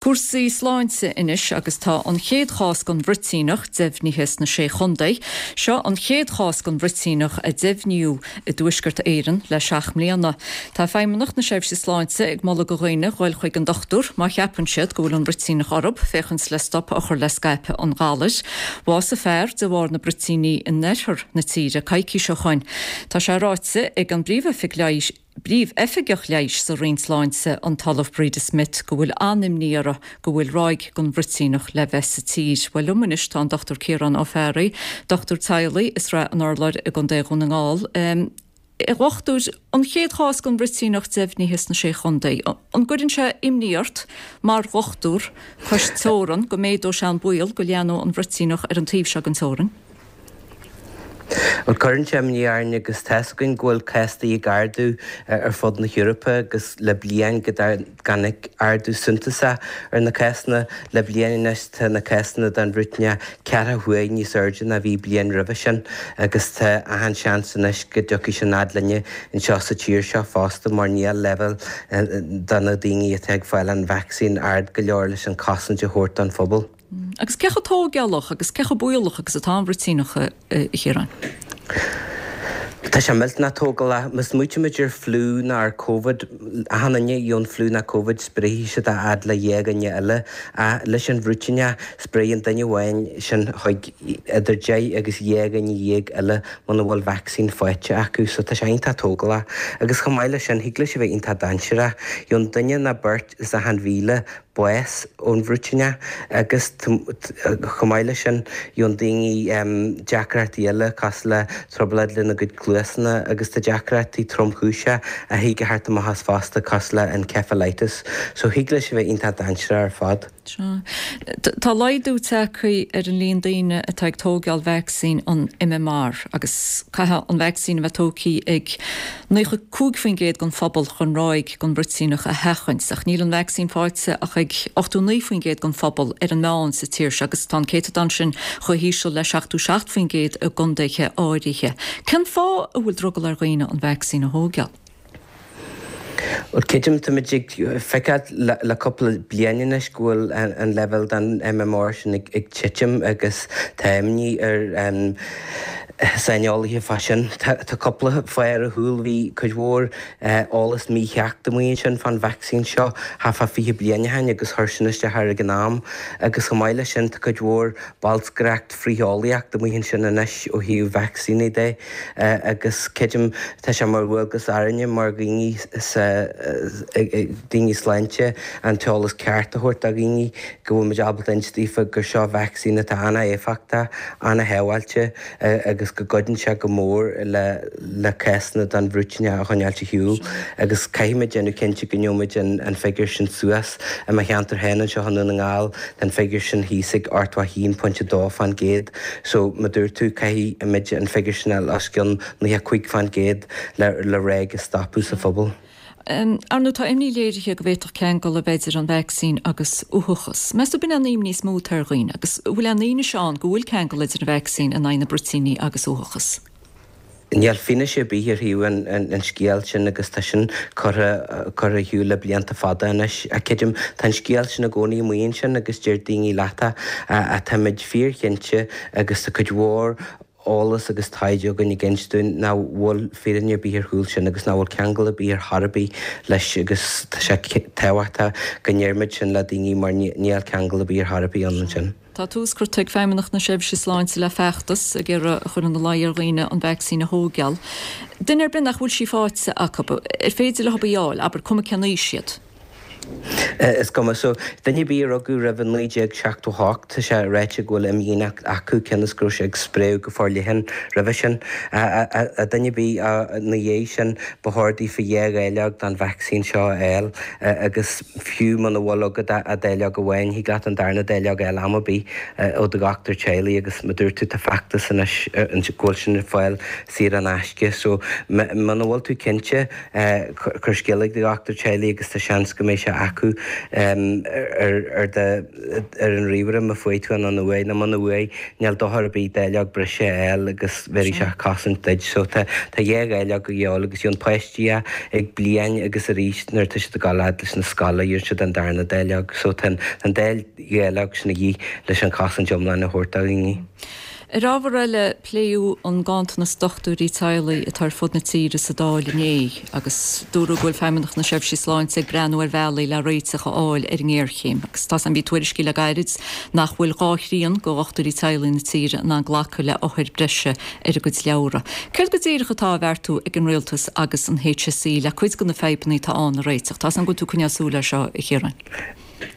Cúrsaí sláinte anois agus tá an chéad chás den bhruitíneach deimhnithe sna Sé Chontae. Seo an chéad chás den bhruitíneach a deimhníodh i dTuaisceart Éireann le 7 mbliana. Tá Feidhmeannacht na Seirbhíse Sláinte ag moladh do dhaoine dhul chuig an dochtúir má cheapann siad go bhfuil an bhruitíneach orthu, féachaint le stop a chur le scaipeadh an ghalair. Bhásaigh fear de bharr na bruitíní in oirthear na tíre coicís ó shoin. Tá sé ráite ag an bPríomh-Oifig Leighis. bPríomh-Oifigeach Leighis sa Roinn Sláinte, an tOllamh Breda Smith, go bhfuil an-imní orthu go bhfuil ráig den bhruitíneach le bheith sa tír. Bhuel, liom anois tá an Dr Ciarán Ó Fearraigh, dochtúir teaghlaigh i Srath an Urláir i gContae Dhún na nGall. A dhochtúir, an chéad chás den bhruitíneach deimhnithe sna Sé Chontae, an gcuireann sé imní ort mar dhochtúir cois teorann go méadóidh sé an baol go leathnóidh an bhruitíneach ar an taobh seo den teorainn? Bhuel, cuireann sé imní orainn agus tá's againn go bhfuil cásanna ag ardú ar fud na hEorpa agus le bliain go dtáinig ardú suntasach ar na cásanna. Le bliain anois tá na cásanna den bhruitíneach ceathracha huair níos airde ná bhí bliain roimhe sin agus tá achan seans anois go dtiocfaidh sin fhad linne anseo sa tír seo fosta mar níl leibhéal de na daoine atá ag fáil an vacsaín ard go leor leis an chosaint a thabhairt don phobal. Agus cé chomh tóigeálach agus cé chomh baolach agus atá an bhruitíneach, a Chiaráin? Tá sé millteanach tógálach. Má smaoitímid ar fliú nó ar Covid, achan duine a gheobhann fliú nó Covid spréifidh siad a fhad le 2 dhuine eile. Ach leis an bhruitíneach, spréann duine amháin sin chuig idir 10 agus 12 dhuine eile muna bhfuil vacsaín faighte acu. So tá sé iontach tógálach. Agus chomh maith leis sin, thig leis a bheith iontach dainséarach. Gheobhann duine nó beirt as achan 1,000 bás ón bhruitíneach agus chomh maith leis sin gheobhann daoine deacrachtaí eile cosúil le trioblóid lena gcuid cluasanna agus tá deacrachtaí tromchúiseacha a thig a theacht amach as fosta cosúil le encephalitis so thig leis a bheith iontach dainséarach ar fad. Sea. Tá laghdú tagtha ar an líon daoine atá ag tóigeáil vacsaín an MMR agus caithfidh an vacsaín a bheith tógtha ag 95% den phobal chun ráig den bhruitíneach a sheachaint, ach níl an vacsaín faighte ach ag 89% den phobal ar an meán sa tír seo agus tá an céatadán sin chomh híseal le 77% i gcontaetha áirithe. Cén fáth a bhfuil drogall ar dhaoine an vacsaín a thóigeáil? Bhuel, creidim, táimid ag feiceáil le cúpla bliain anois go bhfuil an leibhéal den MMR sin ag titim agus tá imní ar saineolaithe fá sin. Tá cúpla fáth ar a chúl. Bhí cuid mhór eolas mícheart amuigh ansin fán vacsaín seo thart fá 20 bliain ó shin agus chuir sin isteach air ag an am agus chomh maith leis sin tá cuid mhór bolscaireacht frith-eolaíocht amuigh ansin anois ó thaobh vacsaíní de. Agus creidim, tá sé mar dhualgas orainne mar dhaoine sa, daoine sláinte, an t-eolas ceart a thabhairt do dhaoine, go bhfuil muid ábalta inse daofa gur seo vacsaín atá an-éifeachtach, an-shábháilte agus go gcuidíonn sé go mór le le cásanna den bhruitíneach a choinneáilt ar shiúl. Agus caithfimid déanamh cinnte go ngeobhaimid an figiúr sin suas. I mo cheantar féin anseo i nDún na nGall, tá an figiúr sin thíos ag 81.2%. So, mar dúirt tú, caithfidh muid an figiúr sin a fháil os cionn 95% le le ráig a stopadh sa phobal. Ar ndóigh, tá imní léirithe go bhféadfadh ceangal a bheith idir an vacsaín agus uathachas. Meas tú ab in é an imní is mó atá ar dhaoine agus an bhfuil aon fhianaise ann go bhfuil ceangal idir an vacsaín in aghaidh na bruitíní agus uathachas? Níl fianaise ar bith ar thaobh an scéil sin agus tá sin curtha curtha ar shiúl le blianta fada anois. Ach creidim, tá an scéal sin i gcónaí amuigh ansin agus deir daoine leat ach táimid fíorchinnte agus tá cuid mhór eolas agus taighde againn ag inse dúinn nach bhfuil fírinne ar bith ar chúl sin agus nach bhfuil ceangal ar bith ar chor ar bith leis agus tá sé tábhachtach go ndeirimid sin le daoine mar níl ceangal ar bith ar chor ar bith ann ansin. Tá tús curtha ag Feidhmeannacht na Seirbhíse Sláinte le feachtas ag iarraidh a chur ina luí ar dhaoine an vacsaín a thóigeáil. Duine ar bith nach bhfuil sí faighte acu, ar féidir leo í a fháil, abair, cuma cén aois iad? Is cuma. So, duine ar bith a rugadh roimh 1978, tá sé ráite go bhfuil imdhíonacht acu, cionn is go raibh sé ag spréadh go forleathan roimhe sin. Duine ar bith ina dhiaidh sin, ba chóir daofa dhá dháileog den vacsaín seo a fháil agus, Fiú muna bhfuil agat ach dáileog amháin, thig leat an darna dáileog a fháil am ar bith ó do dhochtúir teaghlaigh agus mar dúirt tú tá feachtas anois go bhfuil sin ar fáil saor in aisce so muna bhfuil tú cinnte cuir scéala ag do dhochtúir teaghlaigh agus tá seans go mbeidh sé. acu ar ar do ar an ríomhaire má fuair tú an uaidh nó muna bhfuair níl dochar ar bith dáileog breise a fháil agus bhéarfaidh sé cosaint duit. So tá tá dhá dháileog a dhíobháil agus gheobhann páistí é ag bliain agus arís nuair atá siad ag dul fhad leis na scoile gheobhann siad an darna dáileog. So tá an dá dháileog sin a dhíth leis an chosaint iomlán a thabhairt do dhaoine. Ar ábhar eile, pléadh an ganntanas dochtúirí teaghlaigh atá ar fud na tíre sa Dáil inné agus dúradh go bhfuil Feidhmeannacht na Seirbhíse Sláinte ag breathnú ar bhealaí le réiteach a fháil ar an ngéarchéim agus tá bhí tuairiscí le gairid nach bhfuil dhá thrian de dhochtúirí teaghlaigh na tíre in ann glacadh le othair breise ar a gcuid leabhra. Céard go díreach atá á bheartú ag an Rialtas agus an HSE le cuid de na fadhbanna atá ann a réiteach? Tá 's agam go bhfuil tú ag coinneáil súil air seo, a Chiaráin.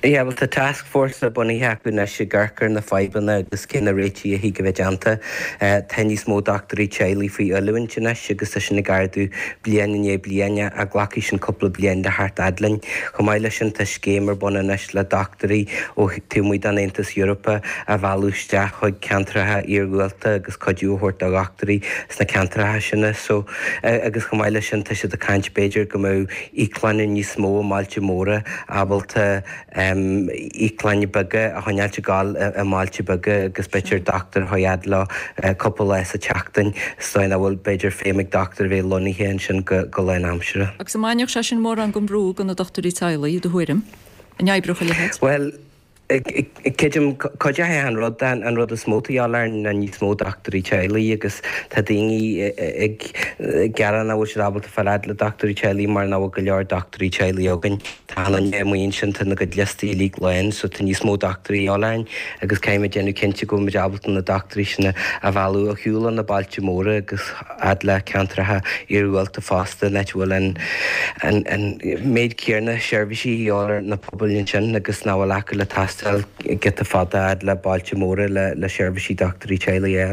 Yeah, bhuel tá taskforce bunaithe acu anois ag amharc ar na fadhbanna agus cé na réitigh a thig a bheith déanta. Tá níos mó dochtúirí teaghlaigh faoi oiliúint anois agus tá sin ag ardú bliain i ndiaidh bliana ach glacfaidh sin cúpla bliain le theacht fhad linn. Chomh maith leis sin tá scéim ar bun anois le dochtúirí ó taobh amuigh den Aontas Eorpach a mhealladh isteach chuig ceantracha iargúlta agus cuidiú a thabhairt do dhochtúirí sna ceantracha sin. So, agus chomh maith leis sin tá siad ag caint b'fhéidir go mbeadh íoclanna níos mó i mbailte móra ábalta íoclanna beaga a choinneáilt ag gabháil i mbailte beaga agus b'fhéidir dochtúir a chur fhad leo cúpla lá sa tseachtain sa dóigh nach bhfuil b'fhéidir feidhm ag dochtúir a bheith lonnaithe ansin go lánaimseartha. Agus an mbainfeadh sé sin mórán den bhrú de na dochtúirí teaghlaigh, i do thuairim? An oibreodh a leithéid? Bhuel, Creidim, cuideoidh an rud, an rud is mó atá de dhíobháil orainn ná níos mó dochtúirí teaghlaigh agus tá daoine ag gearán nach bhfuil siad ábalta fáil fhad le dochtúirí teaghlaigh mar nach bhfuil go leor dochtúirí teaghlaigh againn. Tá an duine amuigh ansin, tá na gcuid liostaí uilig lán so tá níos mó dochtúirí de dhíobháil orainn agus caithfimid déanamh cinnte go bhfuil muid ábalta na dochtúirí sin a mhealladh ar shiúl ó na bailte móra agus fhad le ceantracha iargúlta fosta, in áit a bhfuil an méid céanna seirbhísí a dhíobháil ar na pobail ansin agus nach bhfuil acu le taisteal giota fada fhad le bailte móra le seirbhísí dochtúirí teaghlaigh a fháil.